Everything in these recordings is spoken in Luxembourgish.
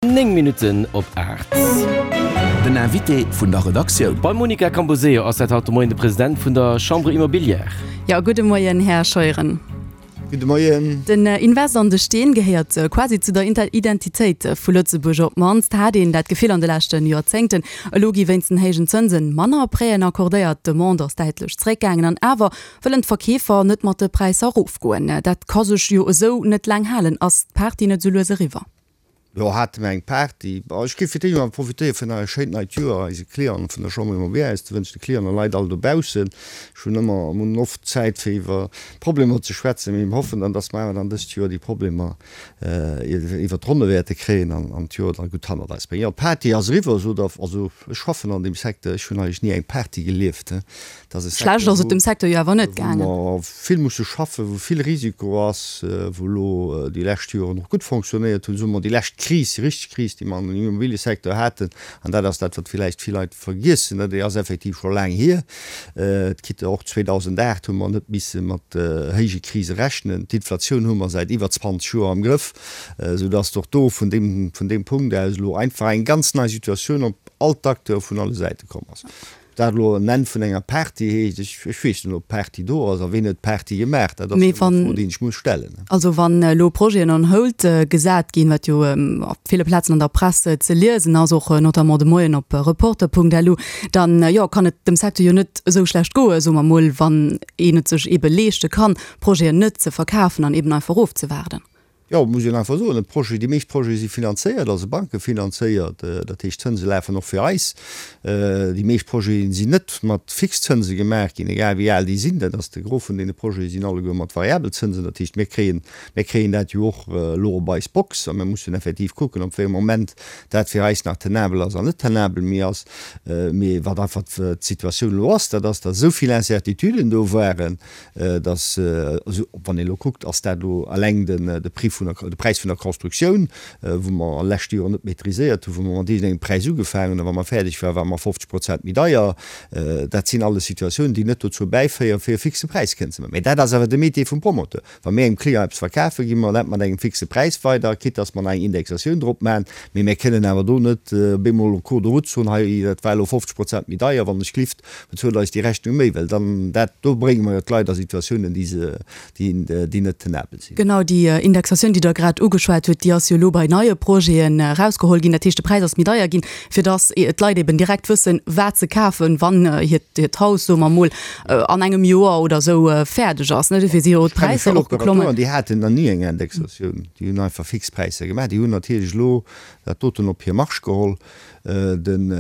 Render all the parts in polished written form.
9 Minutten op 8. Den Invité vun der Redaktioun. Beim Monica Camposeo ass dat haut de Moien de President vun der Chambre Immobilière. Jo, gudde Moien, Här Scheuren. Gudde Moien. Den Invest an de Steen gehéiert quasi zu der Identitéit vu Lëtzebuerg. Op d'mannst hat een dat Gefill an de leschte Joerzéngten. Elo gi wéinst den héijen Zënsen manner Prêten accordéiert, d'Demande ass däitlech zeréckgaangen an awer wëllen d'Verkeefer net mat de Präisser erofgoen. Dat ka sech jo esou net laang halen. Ass d'Party net esou lues eriwwer? Jo, hate mer eng Party. Bon, ech géif fir d'éischt emol profitéieren, fir nach e schéint neit Joer eise Clienten vun der Chambre Immobilière aus ze wënschen, de Clienten a Leit all dobaussen. Ech hunn ëmmer, mir hunn oft Zäit fir iwwer Problemer ze schwätzen, mee mir hoffen dann, dass mer awer dann dëst Joer déi Problemer iwwer d'Ronne wäerte kréien an an d'Joer da gutt hannert eis bréngen. Jo, d'Party ass eriwwer, sot Der. Also, ech schaffen an deem Secteur, ech hunn eigentlech ni eng Party gelieft. Et ass e Schlecht Secteur, ass et dem Secteur jo awer net gaangen. wou mer vill musse schaffen, wou vill Risiko ass, wou elo déi lescht Joren och gutt fonctionnéiert hunn, soe mer déi lescht Kris, déi richteg Kris, déi mer an dem Immobiliësecteur haten, an dat ass dat, wat villäicht vill Leit vergiessen, déi ass effektiv scho laang hier, quitte och 2008 hu mer net misse mat héije Krise rechnen, d'Inflatioun hu mer säit iwwer 20 Joer am Grëff, soudass och do vun deem, vun deem Punkt aus elo einfach eng ganz nei Situatioun op all d'Acteure vun alle Säite komm ass. Dat elo en Enn vun enger Party heescht, ech, ech weess net, ob d'Party do ass a ween huet d'Party gemaach. Dat ass Mee jo eng wann, Fro, déi ech muss stellen. also wann elo Projeten on hold gesat ginn, wat jo op ville Plazen an der Press ze liesen ass, och notamment de Moien op Reporter.lu, dann, jo, kann et dem Secteur jo net esou schlecht goen, soe mer mol, wann een et sech eebe leeschte kann, Projeten net ze verkafen an eeben einfach ofzewaarden. Jo, muss een einfach soen, e Projet, déi meescht Projete si finanzéiert, also bankefinanzéiert, dat heescht d'Zënse lafen och fir eis. Déi meescht Projete sinn net mat Fixzënse gemaach ginn, egal wéi al déi sinn. Dat ass de Gros vun deene Projete sinn alleguer mat variabel Zënsen. Dat heescht, mir kréien, mir kréien dat jo och elo op eis Box a mir mussen effektiv kucken, op wéi engem Moment dat fir eis nach tenabel ass an net tenabel méi ass. Mee wat einfach d'Situatioun elo ass, dat ass, datt esou vill Incertituden do waren, dass, also wann een elo kuckt, ass dat elo eleng den de Prix vun der, de Präis vun der Constructioun, wou mer lescht Joer net maîtriséiert hunn, wou mer mat iergendengem Präis ugefaangen hunn a wa mer fäerdeg waren, ware mer 50 Prozent méi deier. Dat sinn alles Situatiounen, déi net dozou bäiféieren, fir e fixe Präis kënnen ze maachen. Mä dat ass awer de Métier vum Promoteur. Wa mir engem Client eppes verkafen, gi mer dat mat engem fixe Präis weider, quitte dass mer nach eng Indexatioun drop maachen. Mee mir kënnen awer do net op eemol en cours de route soen, hei, dat war elo 50 Prozent méi deier, wann ech glift, Bezuelt eis déi Rechnung méi, well dann dat, do brénge mer jo d'Leit a Situatiounen, déi se, déi, déi net tenabel sinn. Genau, déi Indexatioun, déi Der grad ugeschwat hutt, déi ass jo elo bei neie Projeten erausgeholl ginn. Dat heescht, de Präis ass méi deier ginn, fir dass d'Leit eben direkt wëssen, wat se kafen, wann hiert, hiert Haus, soe mer emol, an engem Joer oder esou fäerdeg ass. Dofir si jo d'Präisser och geklommen. Ech kenne vill Operateuren, déi haten nach ni eng Indexatioun. Déi hunn einfach fix Präisser gemaach. Déi hunn natierlech elo dat doten op hir Marge geholl. Den,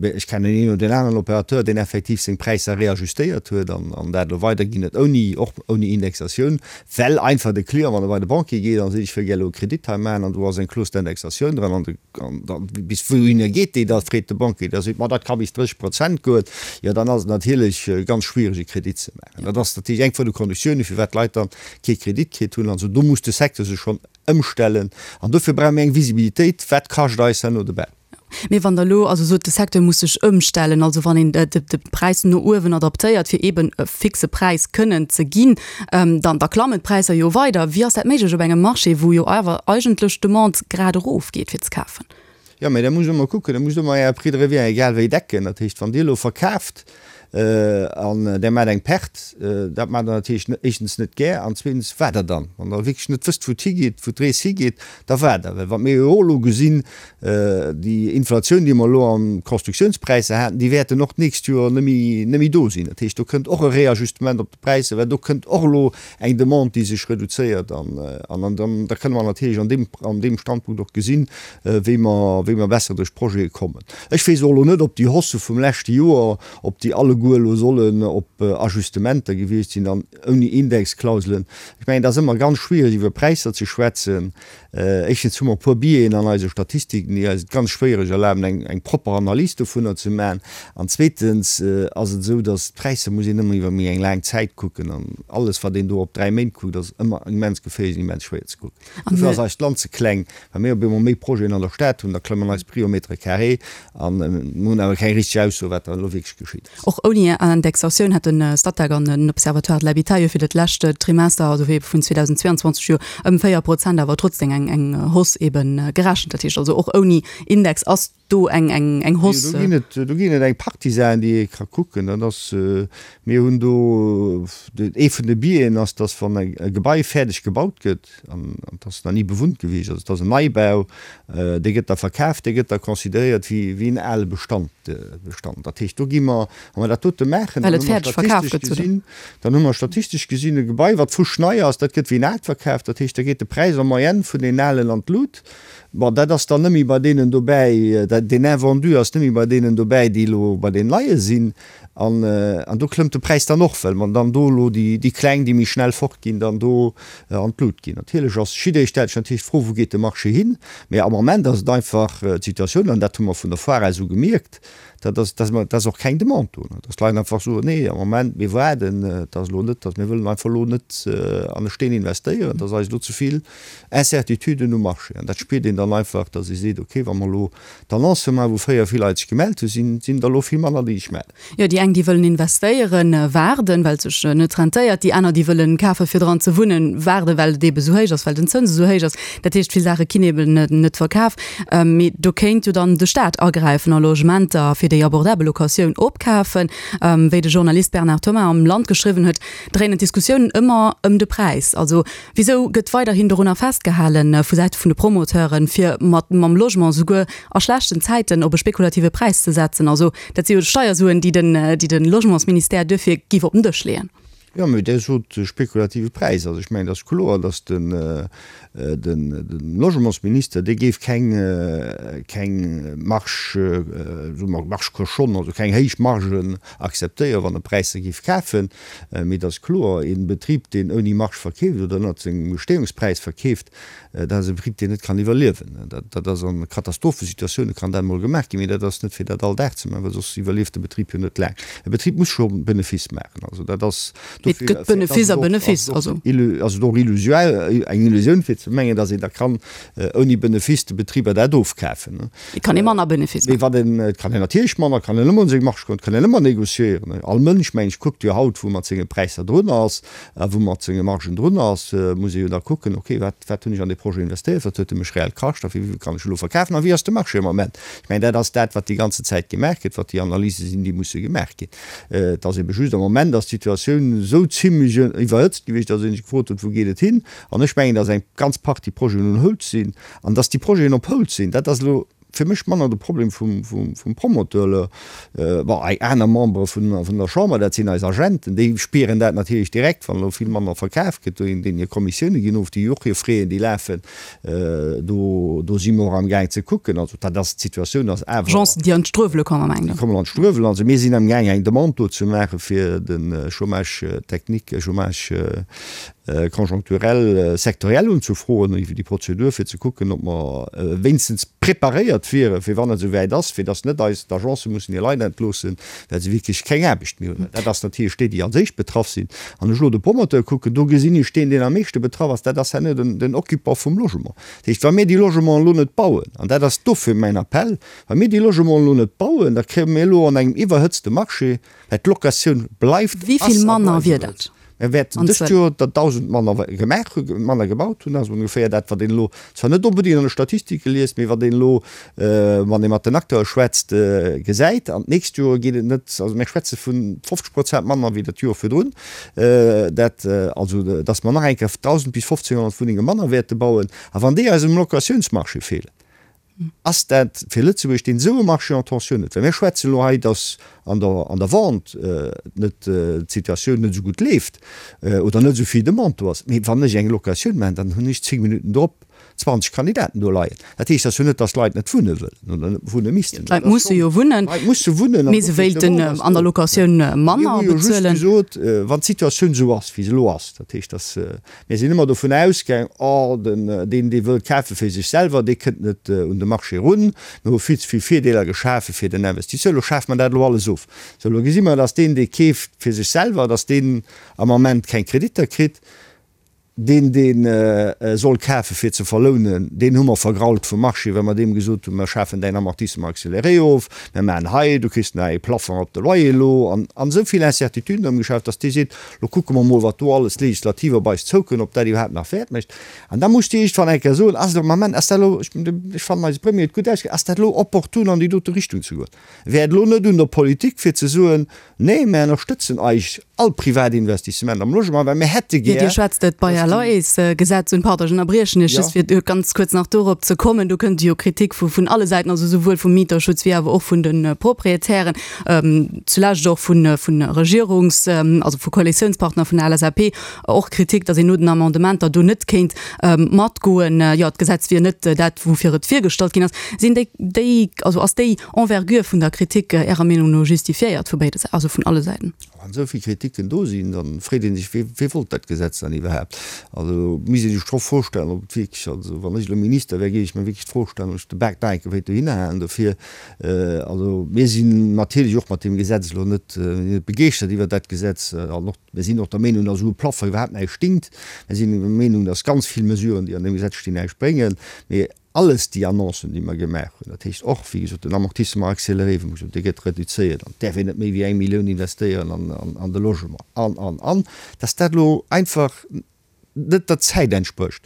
ech kennen een oder deen aneren Opérateur, deen effektiv seng Präisser reajustéiert huet an an dat elo weiderginn huet, ouni, och ouni Indexatioun, well einfach de Client, wann e bei de Banquier geet a seet, ech wëll gär elo e Kredit hei maachen an do ass eng Clause d'indexation dran an de, an da bis wouhinner geet déi da, freet de Banquier, da seet, ma dat ka bis 30 Prozent goen, jo dann ass et natierlech ganz schwiereg e Kredit ze maachen. Dat ass natierlech eng vun de Konditiounen, firwat d'Leit dann kee Kredit kritt hunn. Also do muss de Secteur sech schonn Ëmstellen. An dofir brauche mir eng Visibilitéit, Wat kascht eis herno de Bau? Mee wann Der elo also sot, de Secteur muss sech ëmstellen, also wann een de Präis no uewen adaptéiert, fir eeben e fixe Präis kënnen ze ginn, dann da klammen d'Präisser jo weider. Wéi ass dat méiglech op engem Marché, wou jo awer eigentlech d'Demande grad erofgeet fir ze kafen? Jo, mä da musst Der emol kucken, da musst Der emol Äre Prix de revient egal wéi decken. Dat heescht, wann Dir elo verkaaft an Der maacht eng Perte, dat maacht Der natierlech éischtens net gär an zweetens waart Der dann, wann Der wierklech net wësst, wou et higeet, wou d'Rees higeet, da waart Der. Well wat mir jo och elo gesinn, déi Inflatioun, déi mer elo an Constructiounspräisser haten, déi wäerten och d'nächst Joer net méi, net méi do sinn. Dat heescht, do kënnt och e Réajustement op de Präisser, well do kënnt och elo eng Demande, déi sech reduzéiert an, an dann, da kënne mer natierlech an deem, an deem Standpunkt och gesinn, wéi mer, wéi mer besser duerch d'Projete kommen. Ech weess och elo net, ob déi Haussë vum leschte Joer, ob déi alleguer elo sollen op Ajustementer gewiescht sinn an ouni Indexklauselen. Ech mengen, et ass ëmmer ganz schwierig iwwer Präisser ze schwätzen. Éischtens hu mer e puer Biaisen an eise Statistiken, déi eis et ganz schwéiereg erlaben, eng, eng propper Analys dovunner ze maachen. An zweetens ass et esou, datt d'Präisser muss een ëmmer iwwer méi eng laang Zäit kucken an alles, wat een do op 3 Méint kuckt, ass ëmmer immens geféierlech an immens schwéier ze kucken. Dofir ass eist Land ze kleng. Wa mir op eemol méi Projeten an der Stad hunn, da klammen eis Prix au mètre carré an mir hunn awer keng richteg Ausso, wat da elo wierklech geschitt ass. Och. Ouni Indexatioun hätt de Statec an den Observatoire de l'habitat jo fir dat lescht Trimester, also fir vun 2022 jo ëm 4 Prozent awer trotzdem eng eng Hausse eben gerechent. Dat heescht also och ouni Index ass do eng eng eng Hausse. Do ginn et do ginn et eng Partie Saachen, déi ee ka kucken. Dat ass, mir hunn do, ee vun de Biaisen ass, datt wann e Gebai fäerdeg gebaut gëtt, an et ass nach ni bewunnt gewiescht, also et ass en Neibau, dee gëtt da verkaf, dee gëtt da consideréiert wéi wéi en ale Bestand Bestand. Dat heescht, do gi mer, wa mer dat dote maachen, dann hu mer statistesch gesinn, dann hu mer statistesch gesinn e Gebai, wat fuschnei ass, dat gëtt wéi en aalt verkaf. Dat heescht, da geet de Präis en moyenne vun deenen alen an d'Lut. Bon, dat ass dann net méi bei deenen dobäi, deen Invendu ass net méi bei deenen dobäi, déi elo bei deenen Neie sinn. An, an do klëmmt de Präis dann och, well mer dann do elo déi, déi Kleng, déi méi schnell fortginn, dann do an d'Lut ginn. Natierlech ass, jidderee stellt sech natierlech d'Fro, Wou geet de Marché hin? Mä am Moment ass et einfach d'Situatioun, an dat hu mer vun der Foire aus u gemierkt, dat ass, dass mer, dass och keng Demande do, dass d'Leit einfach soen, Nee, am Moment, mir waarden, et ass elo net, dass mir wëllen einfach elo net an e Steen investéieren, et ass eis elo ze vill Incertituden um Marché. An dat spiert een dann einfach, dass ee seet, okay, wa mer elo d'Annonce maachen, wou fréier vill Leit sech gemellt hunn, sinn, sinn der elo vill manner, déi sech mellen. Jo, déi eng, déi wëllen investéieren, waarden, well et sech net rentéiert. Déi aner, déi wëllen kafen, fir dran ze wunnen, waarden, well et eebe sou héich ass, well den Zëns esou héich ass. Dat heescht, vill Saache ginn eeben net verkaf. Mee do kéint jo dann de Staat agräifen a Logementer fir déi abordabel Locatioun opkafen. Wéi de Journalist Bernard Thomas am Land geschriwwen huet, dréinen d'Diskussiounen ëmmer ëm de Präis. Also Wisou gëtt weiderhin dorunner festgehalen, vu Säite vun de Promoteuren, fir mat mam Logement souguer a schlechten Zäiten op e spekulative Präis ze setzen? Also dat si jo Steiersuen, déi den, déi de Logementsministère duerfir giff op den Dësch leeën. Jo, mee Dir sot spekulative Präis. Also ech mengen, et ass kloer, datt den, den Logementsminister, dee géif keng, keng Marge, soe mer Marge cochonne, also keng héich Margen akzeptéieren, wann e Präisser géif kafen. Mee et ass kloer, ee Betrib, deen ouni Marge verkeeft oder ënnert sengem Gestehungspräis verkeeft, dat ass e Betrib, deen net kann iwwerliewen. Dat ass a Katastrophesituatioune kann dat emol gemaach ginn, mee dat ass net fir dat all Dag ze maachen, well soss iwwerlieft de Betrib jo net laang. E Betrib muss scho Benefice maachen. Also dat ass Et gëtt Benefice a Benefice. Also. Ass et och illusoire, eng Illusioun fir ze mengen, datt een da kann ouni Benefice de Betriber dat ofkafen. Et kann ee manner Benefice maachen. Mee wat een, et kann een natierlech manner, et kann een ëmmer un seng Marge goen, et kann een ëmmer négociéieren. All Mënsch, meng ech, kuckt jo haut, wou mat senge Präisser drun ass a wou mat senge Margen drun ass, muss ee jo da kucken, okay, wat, wat hunn ech an dee Projet investéiert, wat huet e mech reell kascht a fir wéivill kann ech elo verkafen a wéi ass de Marché am Moment. Ech mengen, dat ass dat, wat déi ganze Zäit gemaach gëtt, wat déi Analyse sinn, déi musse gemaach ginn. Et ass ebe just, am Moment ass d'Situatioun esou zimlech iwwerhëtzt gewiescht, datt ee sech gefrot huet, wou geet et hin? An ech mengen, datt eng ganz Partie Projeten on hold sinn. An datt déi Projeten op hold sinn, dat ass elo fir mech manner de Problem vum Promoteur. Bon, eng aner Membere vun der Chamber, dat sinn eis Agenten, déi spieren dat natierlech direkt, wann elo vill manner verkaf gëtt, deenen hir Kommissioune ginn of, déi och hir Fräen, déi lafen. Do, do si mer och amgaang ze kucken. Also dat ass, d'Situatioun ass awer. Agencen, déi an d'Struewele kommen, mengt Der? Déi kommen an d'Struewelen. Also mir sinn amgaang eng Demande do ze maache fir de Chômage technique, Chômage conjoncturel sectoriel unzefroen, iwwer déi Prozedur, fir ze kucken, ob mer wéinstens preparéiert wieren, fir wann et esou wäit ass, fir datt net eis d'Agencë mussen hir Leit entloossen, well se wierklech keng Aarbecht méi hunn. Dat ass natierlech déi, déi als éischt betraff sinn. Wann ech elo de Promoteur kucken, do gesinn ech deen, deen am meeschte betraff ass, dat ass herno den, den Occupant vum Logement. Dat heescht, wa mir déi Logementen elo net bauen, an dat ass dofir mäin Appell, wa mir déi Logementen elo net bauen, da kréie mir elo an engem iwwerhëtzte Marché, well d'Locatioun bleift, Wéi ass vill a manner bleift wier dat? Mir wäerten dëst Joer der 1.000 manner gemaach hunn, manner gebaut hunn. Dat ass ongeféier dat, wat een elo zwar net onbedéngt an de Statistike liest, mee wat een elo, wann ee mat den Acteure schwätzt, gesäit. An d'nächst Joer geet et net, also mir schwätze vu 50 Prozent manner wéi dat Joer virdrun. Dat also, datt mer nach eng Kéier 1.000 bis 1.500 Wunnenge manner wäerte bauen. A wann déi eis um Locatiounsmarché feelen, Ass dat fir Lëtzebuerg, deen esou e Marché en tension huet, well mir schwätzen elo hei, datt an der an der Vente net d'Situatioun net esou gutt leeft oder net esou vill Demande do ass, mee wann ech eng Locatioun maachen, dann hunn ech 10 Minutten drop 20 Kandidaten do leien. Dat heescht ass jo net, datt d'Leit net wunne wëllen oder net wunne missten. D'Leit musse jo wunnen, D'Leit musse wunnen mee se wéilten an der Locatioun manner bezuelen. Mir hu jo just gesot, wann d'Situatioun esou ass, wéi se elo ass, dat heescht, datt Mir sinn ëmmer dovun ausgaang, oh, den, deen, dee wëllt kafe fir sech selwer, dee kënnt net un de Marché erun. Mir hu vill ze vill Virdeeler geschafe fir den Investisseur. Elo schafe mer dat elo alles of. Sou, elo gesi mer, dass deen, dee keeft fir sech selwer, dass deen am Ament keng Kreditter kritt. Deen, dee soll kafe fir ze verlounen, deen hu mer vergrault vum Marché, well mer deem gesot hunn, mer schafen däin Amortissement accéléré of, mer maachen hei, du kriss nach ee Plafond op de Loyer elo, an esou vill Incertituden ëmgeschaaft, datt dee seet, lo kucke mer mol, wat do alles legislativ op eis zoukënnt, ob dat iwwerhaapt nach Wäert mécht. An da muss Dir iergendwann eng Kéier soen, ass et am Ament, ass dat elo, ech fannen eise Premier huet gutt ausgedréckt, ass dat elo opportun an déi dote Richtung ze goen? Wär et elo net un der Politik fir ze soen, Nee, mär ënnerstëtzen eig all privat Investissement am Logement, well mär hätte gär. Dir schwätzt et Bail-à-loyers-Gesetz un. Pardon, ech ënnerbriechen Iech just, fir ganz kuerz nach dorop ze kommen. Do kënnt jo Kritik vun alle Säiten, also souwuel vum Mieterschutz wéi awer och vun de Proprietären, zulescht och vu Regierungs-, also vu Koalitiounspartner vun der LSAP och Kritik, datt een no den Amendementer do net kéint matgoen. Jo, d'Gesetz wier net dat, woufir et virgestallt ginn ass. Sinn déi, déi, also ass déi Envergure vun der Kritik Ärer Meenung no justifiéiert vu béide, also vun alle Säiten? Wann esou vill Kritiken do sinn, da freet ee sech, wee, wee wollt dat Gesetz dann iwwerhaapt? Also misst ee sech scho Fro stellen, ob et wierklech, also wann ech elo Minister wär, géif ech mir wierklech d'Fro stellen, ob ech de Bak nach eng Kéier wéilt dohinner halen dofir. Also mir sinn natierlech och mat deem Gesetz elo net, net begeeschtert iwwert dat Gesetz an och, mir sinn och der Meenung, datt esou e Plafond iwwerhaapt näischt dingt. Mir sinn der Meenung, datt ganz vill Mesuren, déi an deem Gesetz stinn, näischt bréngen. Mee alles déi Annoncen, déi mer gemaach hunn, dat heescht och, wéi gesot, den Amortissement accéléré, wou mer gesot hunn, dee gëtt reduzéiert an et däerf een net méi wéi eng Millioun investéieren an de Logement an, an, an, datt dat elo einfach net der Zäit entsprécht.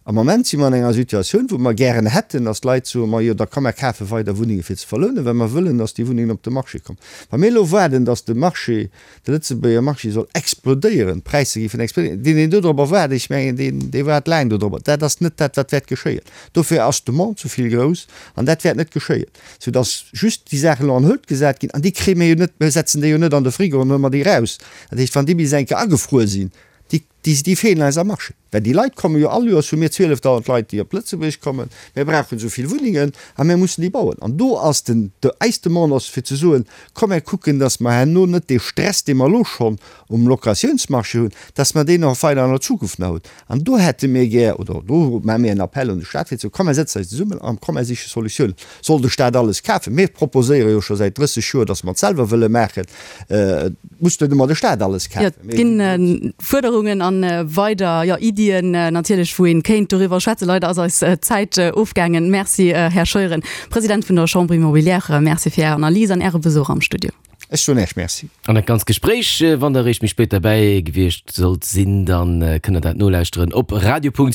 Am Moment si mer an enger Situatioun, wou mer gären hätten, datt d'Leit soen, Majo, da komm mer kafe weider Wunnenge fir ze verlounen, well mer wëllen, datt déi Wunnengen op de Marché kommen. Wa mir elo waarden, datt de Marché, de Lëtzebuerger Marché soll explodéieren, d'Präisser géifen explodéieren, deen, deen dodropper waart, ech mengen, deen, dee waart laang dodropper. Dat ass net dat, wat wäert geschéien. Dofir ass d'Demande zu vill grouss an dat wäert net geschéien, soudatt just déi Saachen elo an Hëlt gesat ginn an déi kréie mir jo net, mir setzen déi jo net an de Frigo an huele mer déi eraus. Dat heescht, wann déi bis eng Kéier agefruer sinn, déi, déi feelen eis am Marché. Well déi Leit komme jo all Joers hu mir 12.000 Leit, déi op Lëtzebuerg kommen. Mir brauchen esou vill Wunnengen a mir mussen déi bauen. An do ass den, eis Demande ass fir ze soen, komm mir kucken, datt mer herno net dee Stress, dee mer elo schonn um Locatiounsmarché hunn, datt mer deen och weider an der Zukunft nach hunn. An do hätte mir gär, oder do maache mir en Appell un de Stat fir ze soen, komm mir sëtzen eis zesummen a komm mir siche Solutiounen. Soll de Stat alles kafen? Mir proposéiere jo scho säit 30 Joer, datt mer et selwer wëlle maachen. Et muss net ëmmer de Staat alles kafen. Jo, et ginn Fuerderungen an weider, jo, Iddien natierlech, wou een kéint doriwwer schwätzen. Leider ass eis Zäit ofgaangen. Merci, Här Scheuren, President vun der Chambre immobilière. Merci fir Är Analys an Äre Besuch am Studio. Ech soen Äech Merci. An dat ganzt Gespréich, wann Der eréischt méi spéit derbäi gewiescht sollt sinn, dann kënnt Der dat nolauschteren op radio.rtl.lu.